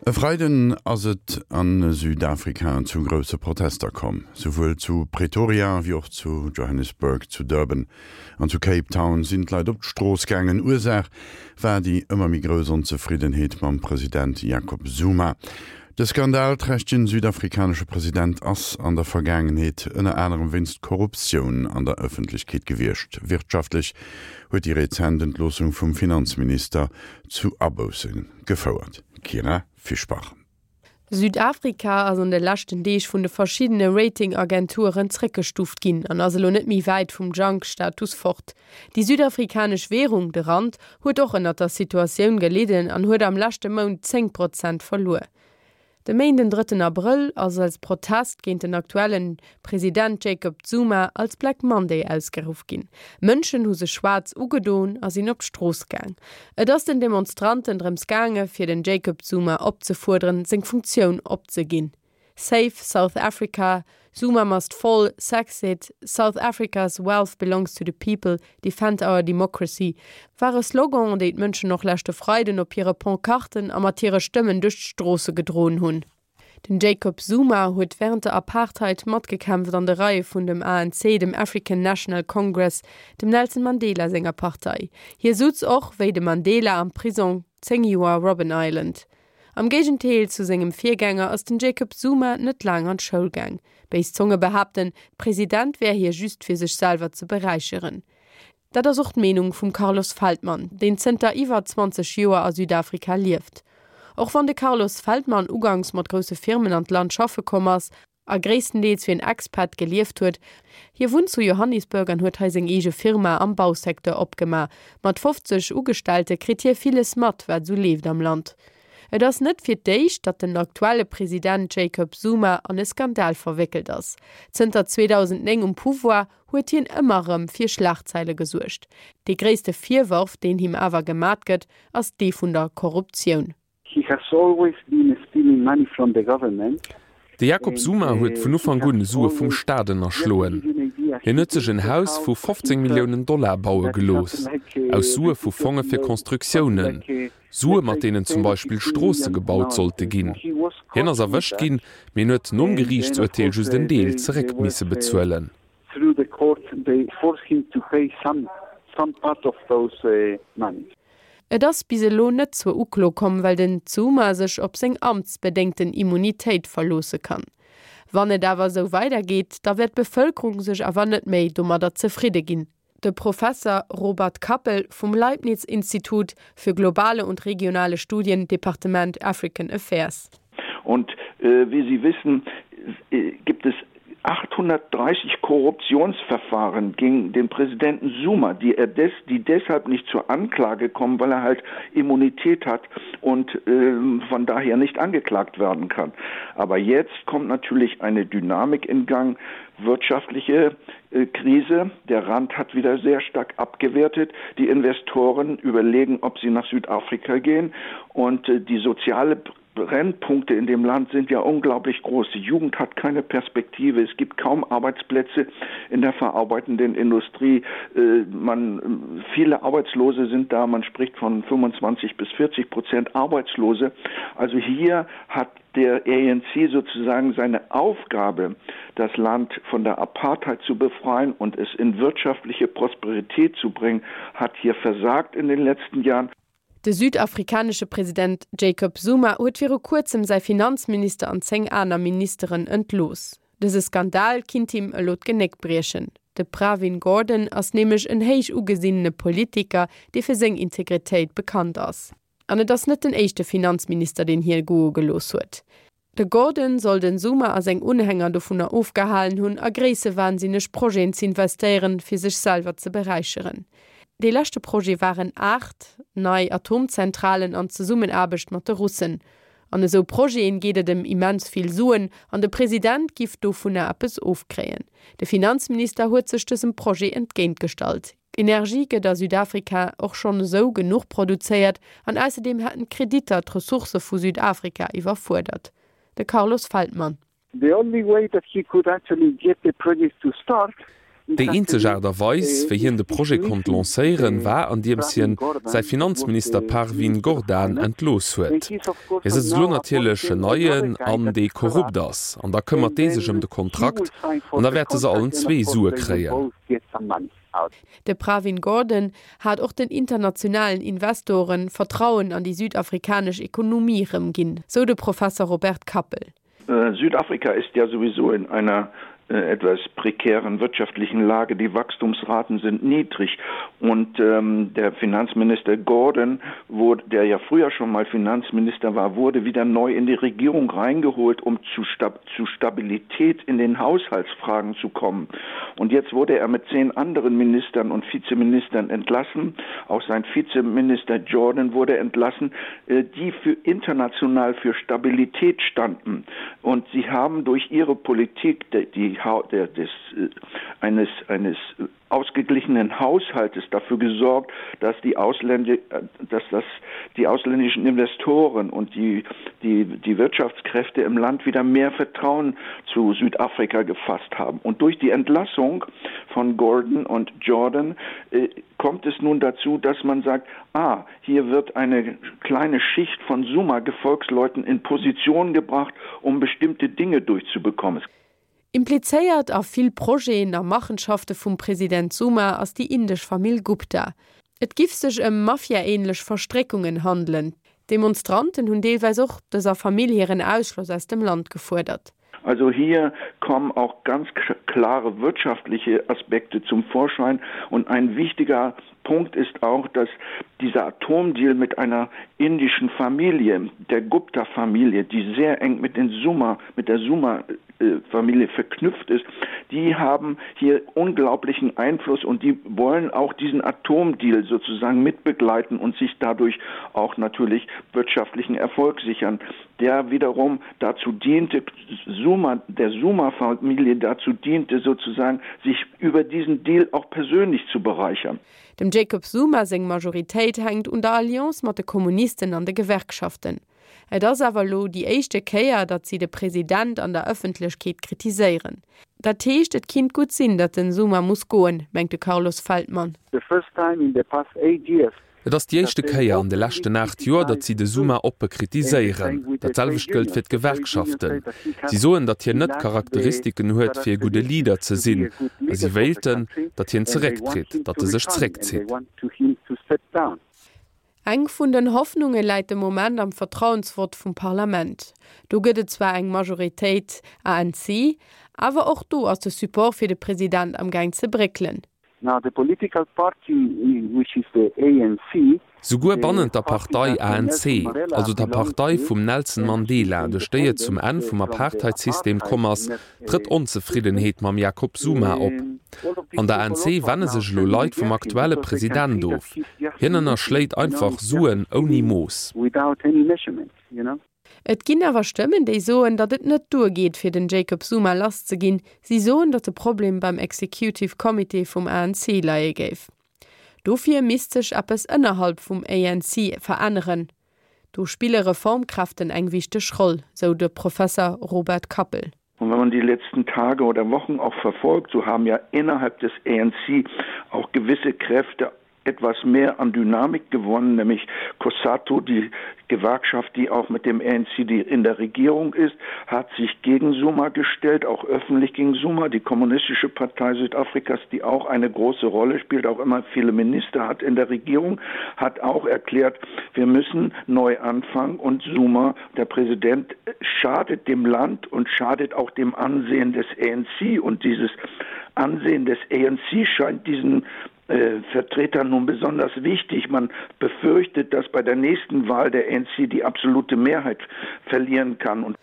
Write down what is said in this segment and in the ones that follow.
E Freiden ass et a Südafrika zu grousse Protester komm. Souwuel zu Pretoria wéi och zu Johannesburg, zu Durban an zu Cape Town sinn d'Leit op d'Strooss gaangen. Ursaach war déi ëmmer méi grouss Onzefriddenheet mam President Jacob Zuma. De skandalträchtegen südafrikanesche President ass an der Vergaangenheet ënner anerem wéinst Korruptioun an der Ëffentlechkeet gewiescht. Wirtschaftlech huet déi rezent Entloossung vum Finanzminister zu Abousse gefouert. Kyra Fischbach. Südafrika ass an de leschten Deeg vun de verschiddene Rating-Agenturen zréckgestuuft ginn an ass elo net méi wäit vum Junk-Status fort. Déi südafrikanesch Währung, de Rand, huet och ënnert der Situatioun gelidden an huet am leschte Mount 10 Prozent verluer. De Méinden, drëtten Abrëll, ass als Protest géint den aktuellen President Jacob Zuma als Black Monday ausgeruff ginn. Mënschen hu sech schwaarz ugedoen a sinn op d'Strooss gaang. Et ass den Demonstranten drëms gaange fir den Jacob Zuma opzefuerderen, seng Funktioun opzeginn. Save South Africa, Zuma must fall, Sexit, South Africa's wealth belongs to the people, Defend our democracy ware Sloganen, déi d'Mënschen och leschte Freiden op hire Pancarten a mat hire Stëmmen duerch d'Stroosse gedroen hunn. Den Jacob Zuma huet wärend der Apartheid matgekämpft an de Reie vun dem ANC, dem African National Congress, dem Nelson Mandela senger Partei. Hie sutz och, wéi de Mandela, am Prisong 10 Joer Robben Island. Am Géigendeel zu sengem Virgänger ass den Jacob Zuma net laang an d'Schoul gaang. Béis Zonge behaapten, President wär hie just fir sech selwer ze beräicheren. Dat ass och d'Meenung vum Carlos Feldman, deen zënter iwwer 20 Joer a Südafrika lieft. Och wann de Carlos Feldman uganks mat grousse Firmen an d'Land schaffe komm ass, a gréisstendeels wéi en Expat gelieft huet. Hie wunnt zu Johannisburg an huet hei seng eege Firma am Bausecteur opgema. Mat 50 Ugestellte kritt hie villes mat, wat esou leeft am Land. Et ass net fir d'éischt, datt den aktuelle President Jacob Zuma an e Skandal verwéckelt ass. Zënter 2009 um Pouvoir, huet hien ëmmer erëm fir Schlagzeile gesuergt. Dee gréisste Virworf, deen him awer gemat gëtt, ass dee vun der Korruptioun. He has always been stealing money from the government. De Jacob Zuma huet vun Ufank un Sue vum Staat ënnerschloen. Hien huet sech en Haus vu 15 Milliounen Dollar baue gelooss, aus Sue vu Fonge fir Constructiounen, Sue mat deenen zum Beispill Stroosse gebaut sollte ginn. Hien ass erwëscht ginn, mee en huet nom Geriichtsurteel just en Deel zeréck misse bezuelen. Through the court they forced him to pay some some part of those monies. Et ass bis elo net zur Uklo komm, well den Zuma sech op seng amtsbedéngten Immunitéit verloosse kann. Wann et awer esou weidergeet, da wäert d'Bevëlkerung sech awer net méi domadder zefridde ginn. De Professer Robert Kappel vum Leibniz-Institut für globale und regionale Studien, Departement African Affairs. Und äh, wie Sie wissen, äh, gibt es 830 Korruptionsverfahren gegen den Präsidenten Zuma, die er des, die deshalb nicht zur Anklage kommen, weil er halt Immunität hat und äh, von daher nicht angeklagt werden kann. Aber jetzt kommt natürlich eine Dynamik in Gang, wirtschaftliche äh, Krise. Der Rand hat wieder sehr stark abgewertet. Die Investoren überlegen, ob sie nach Südafrika gehen und äh, die soziale Brennpunkte in dem Land sind ja unglaublich groß. Die Jugend hat keine Perspektive. Es gibt kaum Arbeitsplätze in der verarbeitenden Industrie. Äh, man, viele Arbeitslose sind da. Man spricht von 25 bis 40 Prozent Arbeitslose. Also hier hat der ANC sozusagen seine Aufgabe, das Land von der Apartheid zu befreien und es in wirtschaftliche Prosperität zu bringen, hat hier versagt in den letzten Jahren. De südafrikanesche President Jacob Zuma huet viru kuerzem säi Finanzminister an 10 aner Ministeren entlooss. Dëse Skandal kinnt him elo d'Genéck briechen. De Pravin Gordhan ass nämlech en héich ugesinnene Politiker, dee fir seng Integritéit bekannt ass. An et ass net den éischte Finanzminister, deen hie goe gelooss huet. De Gordhan soll den Zuma a seng Unhänger dovunner ofgehalen hunn, a gréissewahnsinneg Projeten z'investéieren, fir sech selwer ze beräicheren. Dee leschte Projet waren 8 nei Atomzentralen an Zesummenaarbecht mat de Russen. An esou Projeten geet et ëm immens vill Suen an de President giff dovunner eppes ofkréien. De Finanzminister huet sech dësem Projet entgéintgestallt. Energie gëtt a Südafrika och schonn esou genuch produzéiert an ausserdeem hätten d'Kreditter d'Ressourcë vu Südafrika iwwerfuerdert. De Carlos Feldman. The only way that he could actually get the project to start. Déi eenzeg Aart a Weis, wéi hien de Projet konnt lancéieren, war andiems hien säi Finanzminister Parvin Gordhan entlooss huet. Hie sëtzt elo natierlech en neien an, dee korrupt ass, an da këmmert dee sech ëm de Kontrakt an da wäerte se allen zwee Sue kréien. De Pravin Gordhan hat och den internationalen Investoren Vertrauen an déi südafrikanesch Ekonomie erëmginn, sou de Professer Robert Kappel. Südafrika ist ja sowieso in einer äh, etwas prekären wirtschaftlichen Lage. Die Wachstumsraten sind niedrig und ähm, der Finanzminister Gordon, wo, der ja früher schon mal Finanzminister war, wurde wieder neu in die Regierung reingeholt, um zu, Stab zu Stabilität in den Haushaltsfragen zu kommen. Und jetzt wurde er mit zehn anderen Ministern und Vizeministern entlassen. Auch sein Vizeminister Jordan wurde entlassen, äh, die für international für Stabilität standen. Und sie haben durch ihre Politik die, die, der, des, äh, eines, eines ausgeglichenen Haushaltes dafür gesorgt, dass die, Ausländi äh, dass das die ausländischen Investoren und die, die, die Wirtschaftskräfte im Land wieder mehr Vertrauen zu Südafrika gefasst haben. Und durch die Entlassung von Gordon und Jordan äh, kommt es nun dazu, dass man sagt, ah, hier wird eine kleine Schicht von Suma-Gefolgsleuten in Position gebracht, um bestimmte Dinge durchzubekommen. Implizéiert a vill Projeten a Machenschafte vum President Zuma ass déi indesch Famill Gupta. Et giff sech ëm Mafia-ähnlech Verstréckungen handelen. D'Demonstranten hunn deelweis och dëser Famill hiren Ausschloss aus dem Land gefuerdert. Also hier kommen auch ganz klare wirtschaftliche Aspekte zum Vorschein und ein wichtiger Punkt ist auch, dass dieser Atomdeal mit einer indischen Familie, der Gupta-Familie, die sehr eng mit den Summa, mit der Summa äh, Familie verknüpft ist, die haben hier unglaublichen Einfluss und die wollen auch diesen Atomdeal sozusagen mitbegleiten und sich dadurch auch natürlich wirtschaftlichen Erfolg sichern, der wiederum dazu diente Suma, der Suma-Familie dazu diente sozusagen sich über diesen Deal auch persönlich zu bereichern. Dem Jacob Zuma seng Majoritéit hänkt un der Alliance mat de Kommunisten an de Gewerkschaften. Et ass awer elo déi éischte Kéier, datt si de President an der Ëffentlechkeet kritiséieren. Dat heescht, et kinnt gutt sinn, datt den Zuma muss goen, mengt de Carlos Feldman. The first time in the past eight years Et ass déi éischte Kéier an de leschten 8 Joer, datt si de Zuma oppe kritiséieren. Dat selwecht gëllt fir d'Gewerkschaften. Si soen, datt hien net d'Charakteristiken huet, fir e gudde Leader ze sinn, a si wéilten, datt hien zerécktritt, datt e sech zeréckzitt. Eng vun den Hoffnunge läit de Moment am Vertrauensvott vum Parlament. Do gëtt et zwar eng Majoritéit ANC, awer och do ass de Support fir de President am Gaang ze bréckelen. Now the political party which is the ANC. Souguer bannent der Partei ANC, also der Partei vum Nelson Mandela, duerch déi et zum Enn vum Apartheidsystem komm ass, trëtt Onzefriddenheet mam Jacob Zuma op. An der ANC wenne sech elo Leit vum aktuelle President of. Hien ënnerschléit einfach Suen ouni Mooss. Et ginn awer Stëmmen, déi soen, datt et net duergeet, fir den Jacob Zuma lass ze ginn. Si soen, datt de Problem beim Executive Comité vum ANC leie géif. Dofir misst sech eppes ënnerhalb vum ANC veränneren. Do spille Reformkräften eng wichteg Roll, sou de Professer Robert Kappel. Und wenn man die letzten Tage oder Wochen auch verfolgt, so haben ja innerhalb des ANC auch gewisse Kräfte etwas mehr an Dynamik gewonnen, nämlich Cossato, die Gewerkschaft, die auch mit dem ANC die in der Regierung ist, hat sich gegen Suma gestellt, auch öffentlich gegen Suma. Die Kommunistische Partei Südafrikas, die auch eine große Rolle spielt, auch immer viele Minister hat in der Regierung, hat auch erklärt, wir müssen neu anfangen und Suma, der Präsident, schadet dem Land und schadet auch dem Ansehen des ANC und dieses Ansehen des ANC scheint diesen äh, Vertretern nun besonders wichtig. Man befürchtet, dass bei der nächsten Wahl der ANC die absolute Mehrheit verlieren kann. Und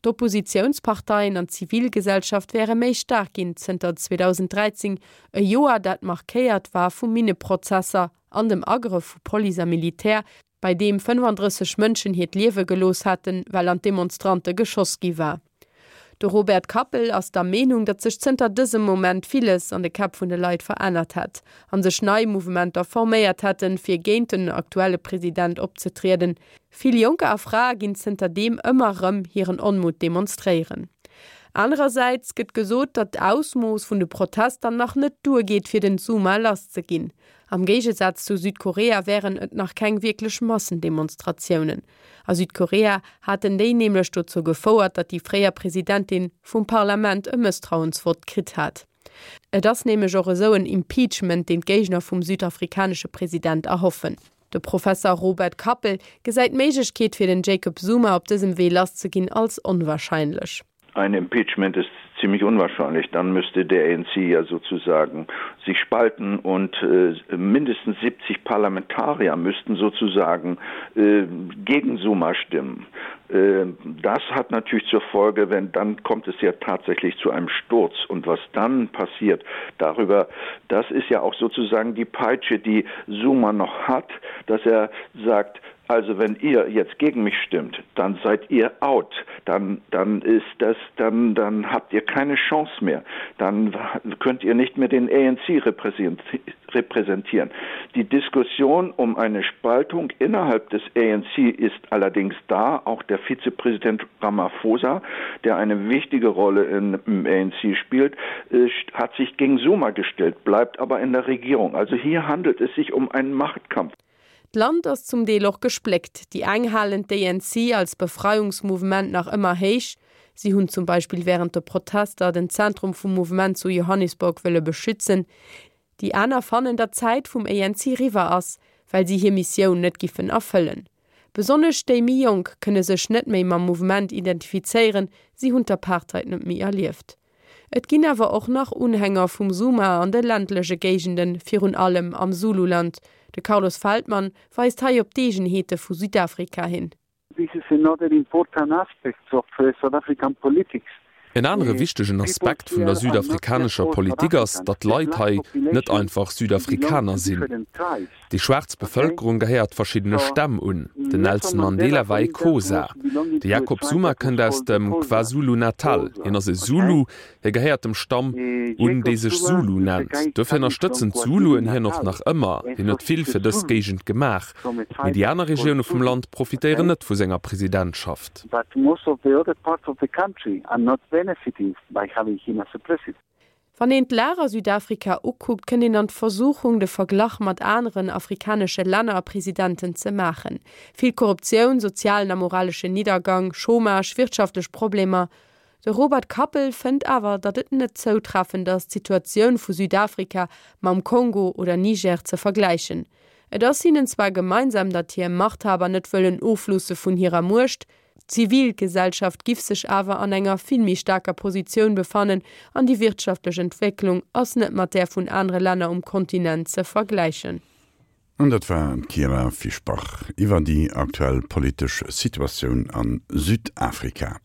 D'Oppositiounsparteien an d'Zivilgesellschaft wäre méi staark ginn zënter 2013, e Joer dat markéiert war vu Minneprozesser an dem Agrëff vu Police a Militär, bei deem 35 Mënschen hiert Liewe gelooss haten, well an d'Demonstrante geschoss gi war. De Robert Kappel ass der Meenung, datt sech zënter dësem Moment villes an de Käpp vun de Leit verännert hätt a sech nei Mouvementer forméiert hätten, fir géint den aktuelle President opzetrieden. Vill Jonker a Frae ginn zënter deem ëmmer erëm hiren Onmutt demonstréieren. Anerersäits gëtt gesot, datt d'Ausmooss vun de Protester nach net duergeet, fir den Zuma lasszeginn. Am Géigesaz zu Südkorea wären et nach keng wierklech Massendemonstratiounen. A Südkorea haten déi nämlech dozou gefouert, datt déi fréier Presidentin vum Parlament e Mësstrauensvott kritt hat. Et ass nämlech och esou en Impeachment, deen d'Géigner vum südafrikanesche President erhoffen. De Professer Robert Kappel gesäit d'Méiglechkeet fir den Jacob Zuma op dësem Wee lasszeginn als onwahrscheinlech. Ein Impeachment ist ziemlich unwahrscheinlich. Dann müsste der ANC ja sozusagen sich spalten und äh, mindestens 70 Parlamentarier müssten sozusagen äh, gegen Zuma stimmen. Äh, das hat natürlich zur Folge, wenn dann kommt es ja tatsächlich zu einem Sturz und was dann passiert darüber, das ist ja auch sozusagen die Peitsche, die Zuma noch hat, dass er sagt, also wenn ihr jetzt gegen mich stimmt, dann seid ihr out, dann, dann ist das dann, dann habt ihr keine Chance mehr, dann könnt ihr nicht mehr den ANC repräsentieren. Die Diskussion um eine Spaltung innerhalb des ANC ist allerdings da, auch der Vizepräsident Ramaphosa, der eine wichtige Rolle in, im ANC spielt, äh, hat sich gegen Zuma gestellt, bleibt aber in der Regierung. Also hier handelt es sich um einen Machtkampf. D'Land ass zum Deel och gespléckt. Déi eng halen d'ANC als Befreiungsmouvement nach ëmmer héich. Si hunn zum Beispill wärend de Protester den Zentrum vum Mouvement zu Johannesburg wëlle beschützen. Déi aner fannen, datt d'Zäit vum ANC riwwer ass, well si hir Missioun net giffen erfëllen. Besonnesch déi méi Jonk kënne sech net méi mam Mouvement identifizéieren, si hunn d'Apartheid net méi erlieft. Et ginn awer och nach Unhänger vum Zuma an de ländleche Géigenden, virun allem am Zululand. De Carlos Feldmann weist hei op d'Eegenheete vu Südafrika hin. This is another important aspect of South African politics. En anere wichtegen Aspekt vun der südafrikanescher Politik ass, datt d'Leit hei net einfach Südafrikaner sinn. Déi schwaarz Bevëlkerung gehéiert verschiddene Stämm un. Den Nelson Mandela war ee Xhosa. De Jacob Zuma kënnt aus dem KwaZulu-Natal. Hien ass e Zulu. Hie gehéiert dem Stamm un, dee sech Zulu nennt. Dofir ënnerstëtzen d'Zuluen hien och nach ëmmer. Hien huet vill fir dës Géigend gemaach. Mee déi aner Regioune vum Land profitéieren net vu senger Presidentschaft. But most of the other parts of the country are not benefiting by having him as a president. Wann een d'Lag a Südafrika ukuckt, kënnt een an d'Versuchung, de Verglach mat aneren afrikanesche Länner a Presidenten ze maachen. Vill Korruptioun, sozialen a moraleschen Niddergang, Chômage, wirtschaftlech Problemer. De Robert Kappel fënnt awer, datt et net zoutreffend ass, d'Situatioun vu Südafrika mam Kongo oder Niger ze vergläichen. Et ass hinnen zwar gemeinsam, datt hir Machthaber net wëllen ofloosse vun hirer Muecht, d'Zivilgesellschaft giff sech awer an enger vill méi staarker Positioun befannen an déi wirtschaftlech Entwécklung ass net mat där vun anere Länner um Kontinent ze vergläichen. An dat war d'Kyra Fischbach iwwer déi aktuell politesch Situatioun a Südafrika.